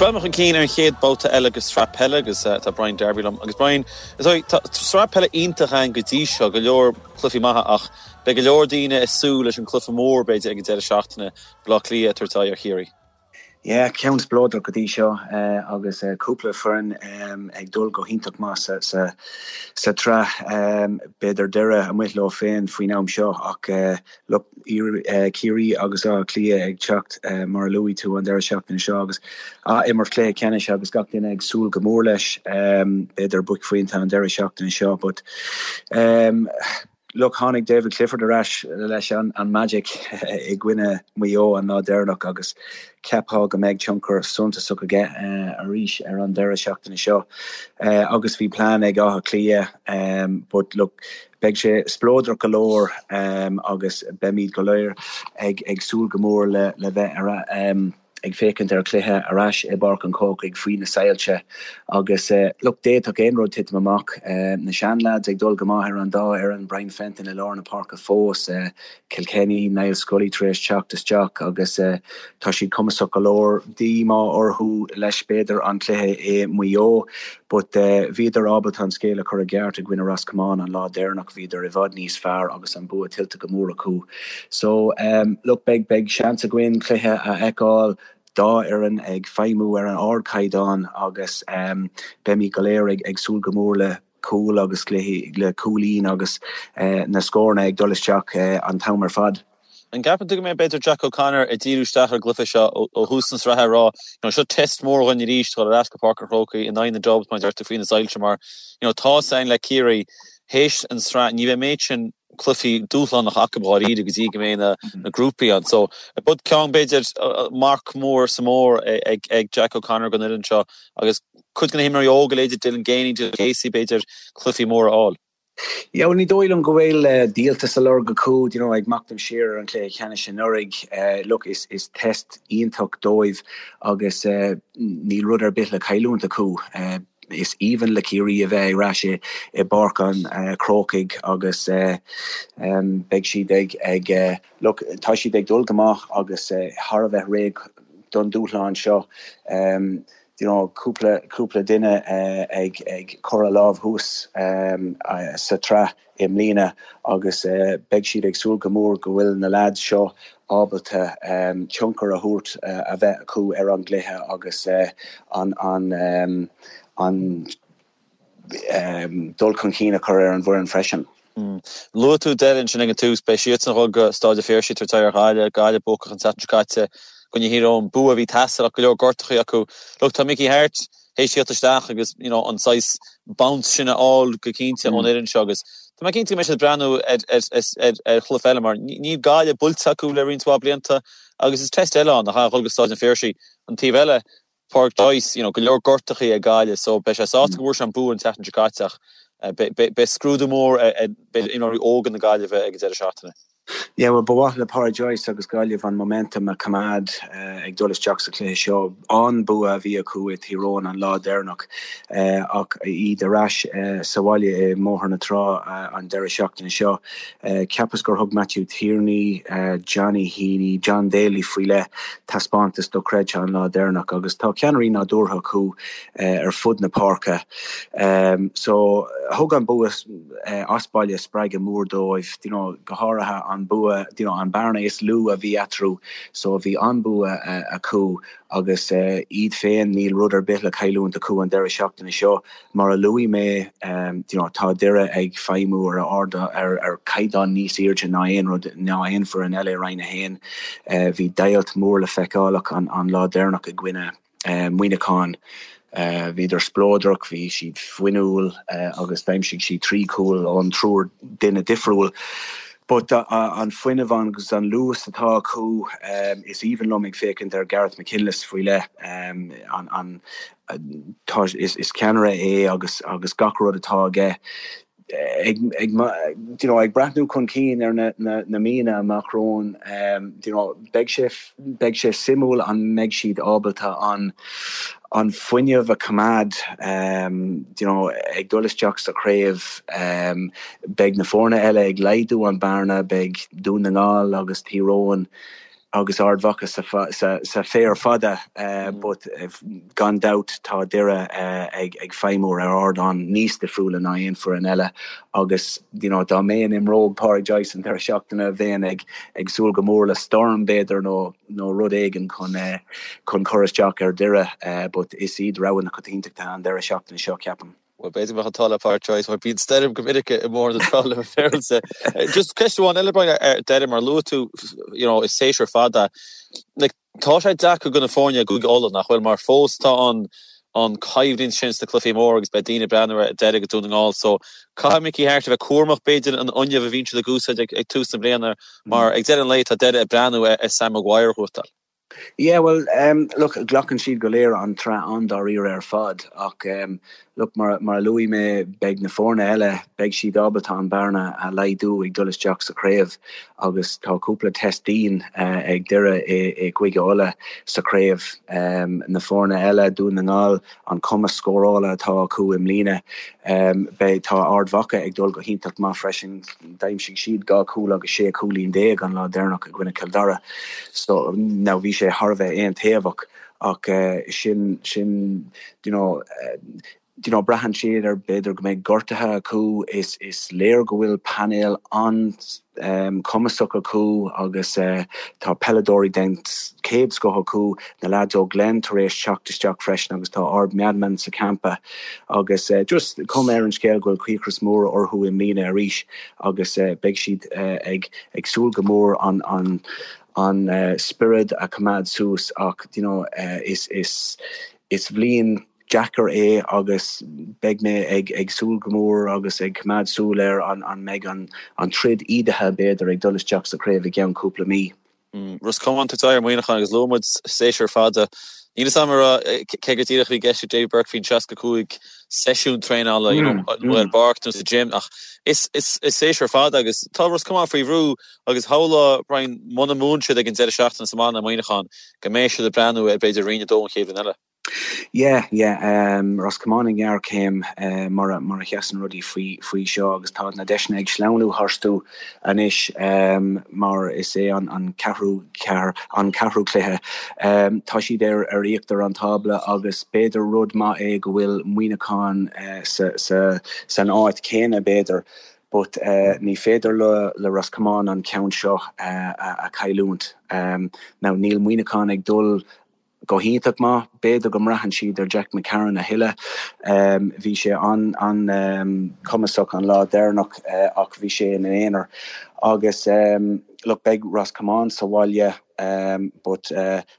Ag breathnú chun cinn ar an chéad babhta eile de sraith peile agus tá Brian Darby liom. Agus Brian, is dóigh, tá sraith peile iontach ann go dtí seo, go leor cluichí maithe ach beidh go leor daoine ag súil leis an cluiche mór, b'fhéidir, ag an deireadh seachtaine, Baile Átha Cliath ag tabhairt aghaidh ar Chiarraí. Yeah, ceann spleodrach go dtí seo agus cúpla foireann ag dul go hiontach maith sa tsraith. B'fhéidir Doire amuigh leo féin faoin am seo ach look, Ciarraí agus Áth Cliath ag teacht mar a luaigh tú an deireadh seachtaine seo agus ath-imirt cluiche ceannais agus gach duine ag súil go mór leis. B'fhéidir buaicphointe an deireadh seachtaine seo but Look, tháinig David Clifford ar ais leis an magic i gcoinne Mhaigh Eo an lá deireanach agus cheapfá go mbeidh tionchar suntasach aige arís ar an deireadh seachtaine seo. Agus bhí plean ag Áth Cliath but look, beidh sé spleodrach go leor agus beimid go léir ag súil go mór le bheith ar ag féachaint ar chluiche ar ais i bPáirc an Chrócaigh faoi na soilse agus look, d'fhéadfadh aon rud titim amach. Na seanleaids ag dul go maith ar an dá fhoireann, Brian Fenton i lár na páirce fós, Kilkenny, Niall Scully tar éis teacht isteach agus tá siad cumasach go leor. Díomá orthu leis b'fhéidir an cluiche i Maigh Eo but bhíodar ábalta an scéal a chur i gceart i gcoinne Ros Comáin an lá deireanach, bhíodar i bhfad níos fearr agus an bua tuillte go mór acu. So, look, beidh, beidh seans againn cluiche a fheiceáil, dá fhoireann ag feidhmiú ar an ardchaighdeán agus beimid go léir ag, ag súil go mór le cúl agus cluichí, le cúilín agus na scóranna ag dul isteach an t-am ar fad. An gceapann tú go mbeidh b'fhéidir Jack O'Connor ag díriú isteach ar an gcluiche seo ó thús na sraithe ag rá, you know, seo test mór dhúinn arís dul ar ais go Páirc an Chrócaigh in aghaidh na Dubs mar a deir tú faoi na soilse mar, you know, tá a fhios againn le Ciarraí théis an sraith ní bheidh méid sin cluichí dúshlánacha acu dháiríre go dtí go mbeidh na grúpaí ann. So, but ceann b'fhéidir marc mór sa mór ag Jack O'Connor don fhoireann seo agus cuid de na himreoirí óga, leithéidí Dylan Geaney, Dylan Casey b'fhéidir cluichí móra a fháil. Yeah, well ní dóigh liom go bhfuil díoltas á lorg acu, you know, ag machnamh siar ar an chluiche ceannais anuraidh. Look, is is test iontach dóibh agus níl rud ar bith le cailliúint acu. Is aoibhinn le Ciarraí a bheith ar ais i bPáirc an Chrócaigh agus beidh siad ag, ag, look, tá siad ag dul go maith agus thar a bheith réidh don dúshlán seo. You know, cúpla, cúpla duine ag, ag cur a lámh thuas sa tsraith. i mbliana agus beidh siad ag súil go mór go bhfuil na leaids seo ábalta tionchar a thabhairt, a bheith acu ar an gcluiche agus an an dul chun cinn a chur ar an bhfoireann freisin. Luaigh tú Doire ansin ag an tús, beidh siadsan ag dul go Stáid an Phiarsaigh ag tabhairt aghaidh ar Ghaillimh, Gaillimh buacach an tseachtain seo caite i gcoinne Thír Eoghain, bua a bhí ag teastáil ach go leor gortachaí acu. Look, tá Mickey Harte théis tíocht isteach agus you know an saghas bounce sin a fháil go cinnte ón fhoireann seo agus tá mé cinnte go mbeidh siad ag breathnú ar ar ar ar chluiche eile mar níl Gaillimh buailte acu le roinnt mhaith blianta agus is test eile ann a dhul go Stáid an Phiarsaigh. An taobh eile, Pádraic Joyce, you know go leor gortachaí ag Gaillimh so beidh sé sásta go bhfuair sé an bua an tseachtain seo caite ach beidh scrúdú mór ar b'fhéidir imreoirí óga na Gaillimhe ag an deireadh seachtaine. Yeah, well, ba mhaith le Pádraic Joyce agus Gaillimh an momentum a choimeád ag dul isteach sa chluiche seo. An-bua a bhí acu i Tír Eoghain an lá deireanach ach iad ar ais sa bhaile i mBóthar na Trá an deireadh seachtaine seo. Cheapas gur thug Matthew Tierney, Johnny Heaney, John Daly faoi leith taispeántas dochreidte an lá deireanach agus tá ceannairí nádúrtha acu ar fud na páirce. So, thug an bua as baile spreagadh mór dóibh, you know, go háirithe an bua, you know, an bearna is lú a bhí eatarthu, so bhí an-bua acu agus iad féin, níl rud ar bith le cailliúint acu an deireadh seachtaine seo. Mar a luaigh mé, you know, tá Doire ag feidhmiú ar ard, ar, ar chaighdeán níos airde ná aon rud, ná aon foireann eile i Roinn 1. Bhí deighilt mór le feiceáil acu an, an lá deireanach i gcoinne. Muineachán. Bhíodar spleodrach, bhí siad fuinniúil agus d'aimsigh siad 3 chúl ón triúr duine difriúil. But an fuinneamh agus an luas atá acu, is aoibhinn liom ag féachaint ar Gareth McKinless faoi leith. An, tá, is ceannaire é agus agus gach rud atá aige ag ag you know ag breathnú chun cinn ar na na na míonna amach romhainn you know beidh sé beidh sé suimiúil an mbeidh siad ábalta an an fuinneamh a choimeád you know ag dul isteach sa chraobh beidh na foirne eile ag laghdú an bearna beidh Dún na nGall agus Tír Eoghain. Agus Ard Mhacha sa féar fada but gan dabht tá Doire ag feidhmiú ar ardán níos difriúla ná aon foireann eile agus you know dá mbeinn i mbróg Pádraig Joyce an deireadh seachtaine bheinn ag ag súil go mór le storm b'fhéidir nó nó rud éigin chun chun cur isteach ar Doire but is iad rogha na coitiantachta an deireadh seachtaine seo ceapaim. Bhuel, b'fhéidir go mbeadh an t-ádh le Pádraic Joyce, mar bíonn stoirm go minic i mBóthar na Trá le bheith féaráilte. Just ceist amháin eile, Brian, ar deireadh, mar luaigh tú, you know, is séasúr fada. Like, tá sé deacair do na foirne i gCúige Uladh, nach bhfuil, mar fós tá an an coimhlint sin sna cluichí móra agus beidh daoine ag breathnú ar Doire agus Dún na nGall. So, caithfidh Mickey Harte a bheith cúramach, b'fhéidir, an fhuinneamh a bhíonn siad ag úsáid ag, ag tús na bliana, mar ag deireadh an lae tá Doire ag breathnú ar Sam Maguire a ghnóthachtáil. Yeah, well, look, glacann siad go léir an tsraith an-dáiríre ar fad ach, look, mar mar a luaigh mé, beidh na foirne eile, beidh siad ábalta an bearna a laghdú ag dul isteach sa chraobh agus tá cúpla test dian ag Doire i gCúige Uladh sa chraobh. Na foirne eile, Dún na nGall, an cumas scórála atá acu i mbliana, beidh, tá Ard Mhacha ag dul go hiontach maith freisin. D'aimsigh siad 2 chúl agus 16 cúilín an lá deireanach i gcoinne Chill Dara. So, now bhí sé thar a bheith aontaobhach ach sin, sin, you know, you know, braitheann siad ar b'fhéidir go mbeidh gortuithe acu. Is, is léir go bhfuil painéal an-chumasach acu agus tá peileadóirí den chéad scoth acu, na leaids ó Glen tar éis teacht isteach freisin agus tá Ard meanman sa champa. Agus just cuma ar an scéal go bhfuil cíocras mór orthu i mbliana arís agus beidh siad ag ag súil go mór an an an spiorad a choimeád suas ach you know is is is bhliain deacair é agus beidh mé ag ag súil go mór agus ag coimeád súil ar an an mbeidh an an troid ídithe b'fhéidir ag dul isteach sa chraobh i gceann cúpla mí. Ros Comáin ag tabhairt aghaidh ar Mhuineachán agus luaigh muid séasúr fada. Níl fhios agam cé go díreach a bhí i gceist ag Davy Burke faoin 65 seisiún traenála you know ar an bpáirc nó sa gym ach is is is séasúr fada agus tá Ros Comáin faoi bhrú agus shamhlófá Brian muna mbuann siad ag an deireadh seachtaine sa mbaile ar Mhuineachán go mbeidh siad ag breathnú ar b'fhéidir Roinn 2 an chéad bhliain eile. Yeah, yeah, Ros Comáin i ngéarchéim mar a mar a sheasann rudaí faoi faoi seo agus tá na deiseanna ag sleamhnú tharstu anois mar is é an an ceathrú ceathair an ceathrú cluiche. Tá siad ar ar íochtar an tábla agus b'fhéidir rud maith é go bhfuil Muineachán sa sa san áit chéanna b'fhéidir but ní féidir le le Ros Comáin an ceann seo a a chailliúint. Now níl Muineachán ag dul go hiontach maith. B'fhéidir go mbraitheann siad ar Jack McCarron a thuilleadh. Bhí sé an-chumasach an lá deireanach ach bhí sé ina aonar. Agus look, beidh Ros Comáin sa bhaile but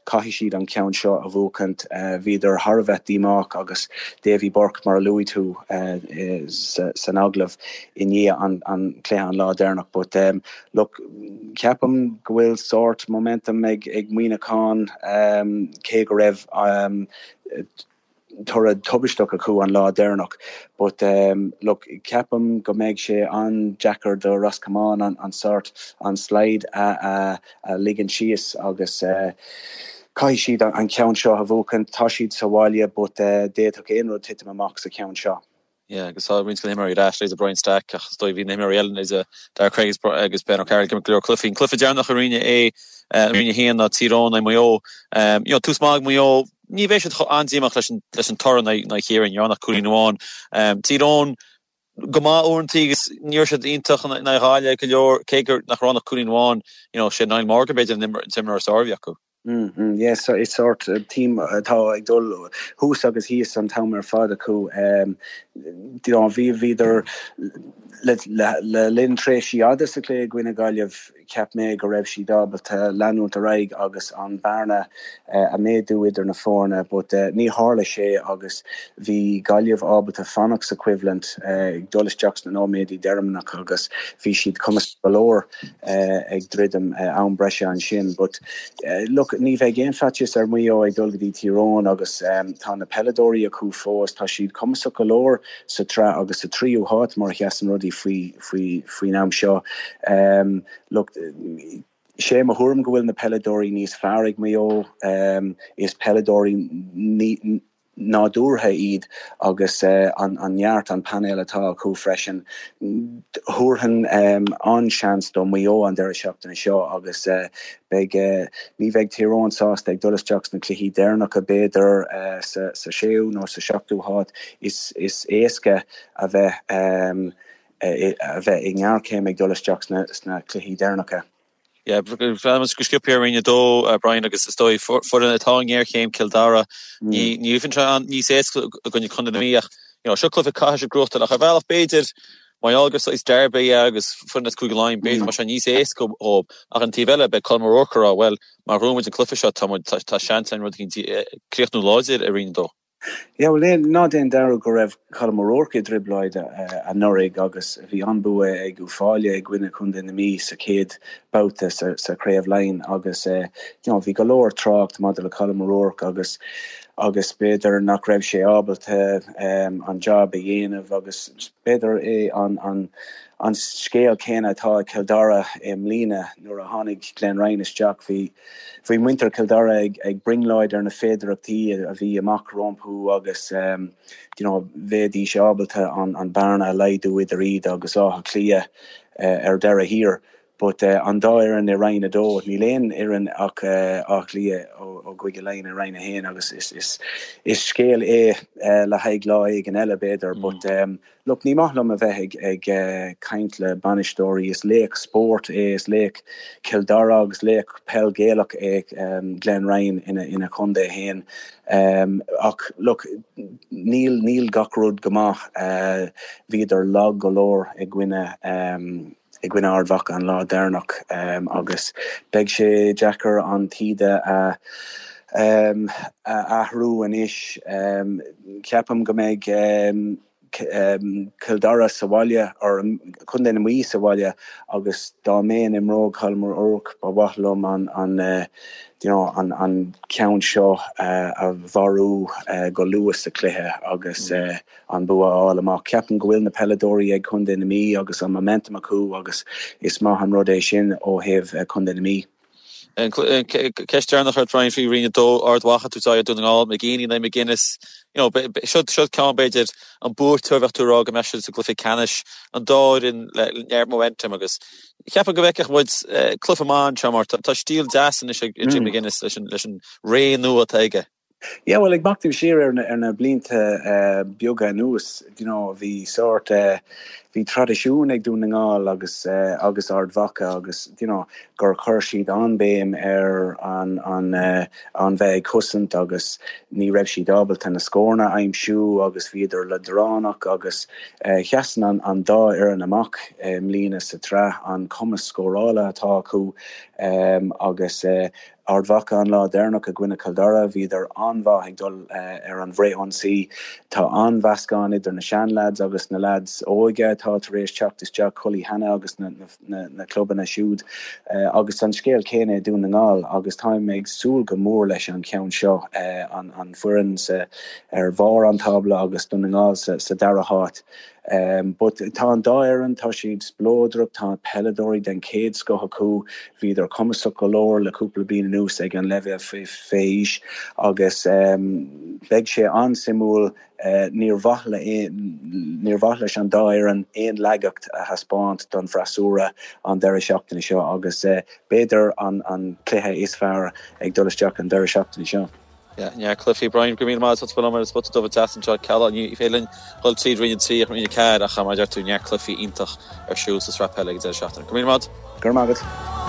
caithfidh siad an ceann seo a bhuachaint. Bhíodar thar a bheith díomách agus Davy Burke, mar a luaigh tú san agallamh i ndiaidh an chluiche an lá deireanach. But Look, ceapaim go bhfuil sórt momentum ag Muineachán, cé go raibh toradh tubaisteach acu an lá deireanach. But look, ceapaim go mbeidh sé an-deacair do Ros Comáin an sórt, an slide a ligean síos agus caithfidh siad an ceann seo a bhuachan. Tá siad sa bhaile but d'fhéadfadh aon rud titim amach sa cheann seo. Yeah, agus tá roinnt de na himreoirí ar ais, leithéidí Brian Stack, ach is dóigh bhí na himreoirí eile, leithéidí Daire Cregg agus Ben O'Carroll ag imirt go leor cluichí. An cluiche deireanach i Roinn A, i Roinn 1 ná Tír Eoghain in aghaidh Maigh Eo. You know, tús maith ag Maigh Eo, ní bheidh siad chomh an-díomách leis an, leis an toradh in aghaidh Chiarraí, ní raibh ann ach cúilín amháin. Tír Eoghain go maith uaireanta agus ní raibh siad iontach in aghaidh Ghaillimh go leor, cé gur nach raibh ann ach cúilín amháin, you know, sé Niall Morgan b'fhéidir an t-imreoir is fearr a bhí acu. Mm, yes, is sórt team atá ag dul thuas agus thíos an t-am ar fad acu. You know, bhí bhíodar le le linn tréimhsí fhada sa chluiche i gcoinne Gaillimh, cheap mé go raibh siad ábalta leanúint ar aghaidh agus an bearna a méadú idir na foirne, but ní tharla sé agus bhí Gaillimh ábalta fanacht sa choimhlint ag dul isteach sna nóiméadaí deireanacha agus bhí siad cumasach go leor. ag druidim am breise ansin. But look, ní bheidh aon faitíos ar Mhaigh Eo ag dul go dtí Tír Eoghain agus tá na peileadóirí acu fós, tá siad cumasach go leor sa tsraith agus sa tríú háit mar a sheasann rudaí faoi faoi faoin am seo. Look, sé mo thuairim go bhfuil na peileadóirí níos fearr ag Maigh Eo, is peileadóirí ní. Nádúrtha iad agus an neart, an painéal atá acu freisin. Thabharfainn an-seans do Mhaigh Eo an deireadh seachtaine seo agus beidh, ní bheidh Tír Eoghain sásta ag dul isteach sna cluichí deireanacha b'fhéidir sa séú nó sa seachtú háit. Is éasca a bheith a bheith i ngéarchéim ag dul isteach sna cluichí deireanacha. Yeah, breathnaíonn muid go sciobtha ar Roinn 2, Brian, agus is dóigh foireann atá i ngéarchéim, Cill Dara, ní bheidh sé níos éasca i gcoinne Contae na Mí ach you know, seo cluiche caithfidh siad gnóthachtáil ach ar bhealach b'fhéidir mar gheall gur saghas derby é agus foireann as Cúige Laighean b'fhéidir go mbeidh sé níos éasca dhóibh ach an taobh eile beidh Colm O'Rourke ag rá bhuel má ghnóthaíonn muid an cluiche seo tá muid tá seans againn rud éicint críochnú láidir i Roinn 2. Yeah, bhuel, ná déan dearúd go raibh Colm O'Rourke i dtrioblóid anuraidh agus bhí an-bua ag Uíbh Fhailí i gcoinne Chontae na Mí sa chéad babhta sa Chraobh Laighean agus you know bhí go leor trácht maidir le Colm O'Rourke agus agus b'fhéidir nach raibh sé ábalta an job a dhéanamh agus b'fhéidir é an an an scéal céanna atá ag Cill Dara i mbliana nuair a tháinig Glenn Ryan isteach bhí Bhí muintir Chill Dara ag brionglóid ar na féidearthachtaí a bhí amach rompu agus you know bheidís ábalta an bearna a laghdú idir iad agus Áth Cliath ar deireadh thiar. But an dá fhoireann i Roinn 2, níl aon fhoireann ach Áth Cliath ó gCúige Laighean i Roinn 1 agus is scéal é le haghaidh lá éigin eile b'fhéidir but Look, ní maith liom a bheith ag caint le bainisteoirí. Is laoch spóirt é, is laoch Chill Dara agus laoch peil Gaelach é Glenn Ryan ina chontae féin. Ach look, níl, níl gach rud go maith. Bhíodar lag go leor i gcoinne, i gcoinne Ard Mhacha an lá deireanach agus beidh sé deacair an taoide a a athrú anois. Ceapaim go mbeidh Cill Dara sa bhaile, or Contae na Mí sa bhaile agus dá mbeinn i mbróg Colm O'Rourke ba mhaith liom an an you know an an ceann seo a mharú go luath sa chluiche agus an bua a fháil amach. Ceapaim go bhfuil na peileadóirí ag Contae na Mí agus an momentum acu agus is maith an rud é sin ó thaobh Contae na Mí. Ceist deireanach ort Brian faoi Roinn 2, Ard Mhacha ag tabhairt aghaidh ar Dún na nGall, McGeeney in aghaidh McGuinness. You know, seo seo ceann b'fhéidir an buaiteoir bheadh tú ag rá go mbeadh siad sa gcluiche ceannais, an dá fhoireann le neart momentum agus cheapfainn go bhfeicfeadh muid cluiche maith anseo mar tá stíl deas anois ag Jim McGuinness leis an leis an ré nua atá aige. Yeah, bhuel, ag machnamh siar ar na, ar na blianta beaga anuas, you know, bhí sórt, bhí traidisiún ag Dún na nGall agus, agus Ard Mhacha agus, you know, gur chuir siad an-bhéim ar an, an, an bheith ag cosaint agus ní raibh siad ábalta na scóranna a aimsiú agus bhíodar leadránach agus sheasann an, an dá fhoireann amach i mbliana sa tsraith, an cumas scórála atá acu agus, Ard Mhacha an lá deireanach i gcoinne Chill Dara, bhíodar an-mhaith ag dul ar an bhfrithionsaí. Tá an-mheascán idir na seanleaids agus na leaids óige atá tar éis teacht isteach, Cully Hannah agus na clubanna siúd. Agus an scéal céanna i Dún na nGall agus táim ag súil go mór leis an cheann seo, an foireann ar bharr an tábla agus Dún na nGall sa dara háit. But tá an dá fhoireann, tá siad spleodrach, tá peileadóirí den chéad scoth acu, bhíodar cumasach go leor le cúpla bliain anuas ag an leibhéal fé aois agus beidh sé an-suimiúil, níor mhaith le, níor mhaith leis an dá fhoireann aon laigeacht a thaispeáint don bhfreasúra an deireadh seachtaine seo agus b'fhéidir an cluiche is fearr ag dul isteach an deireadh seachtaine seo. Yeah, neart cluichí. Brian, go raibh míle maith agat as ucht a bheith liom ar an Spota Dubh an tseachtain seo. Cealla, ní féidir linn dhul tríd Roinn 3 ach Roinn 4 ach mar a deir tú, neart cluichí iontach ar siúl sa sraith peile ag an deireadh seachtaine. Go raibh míle maith agat. Go raibh maith agat.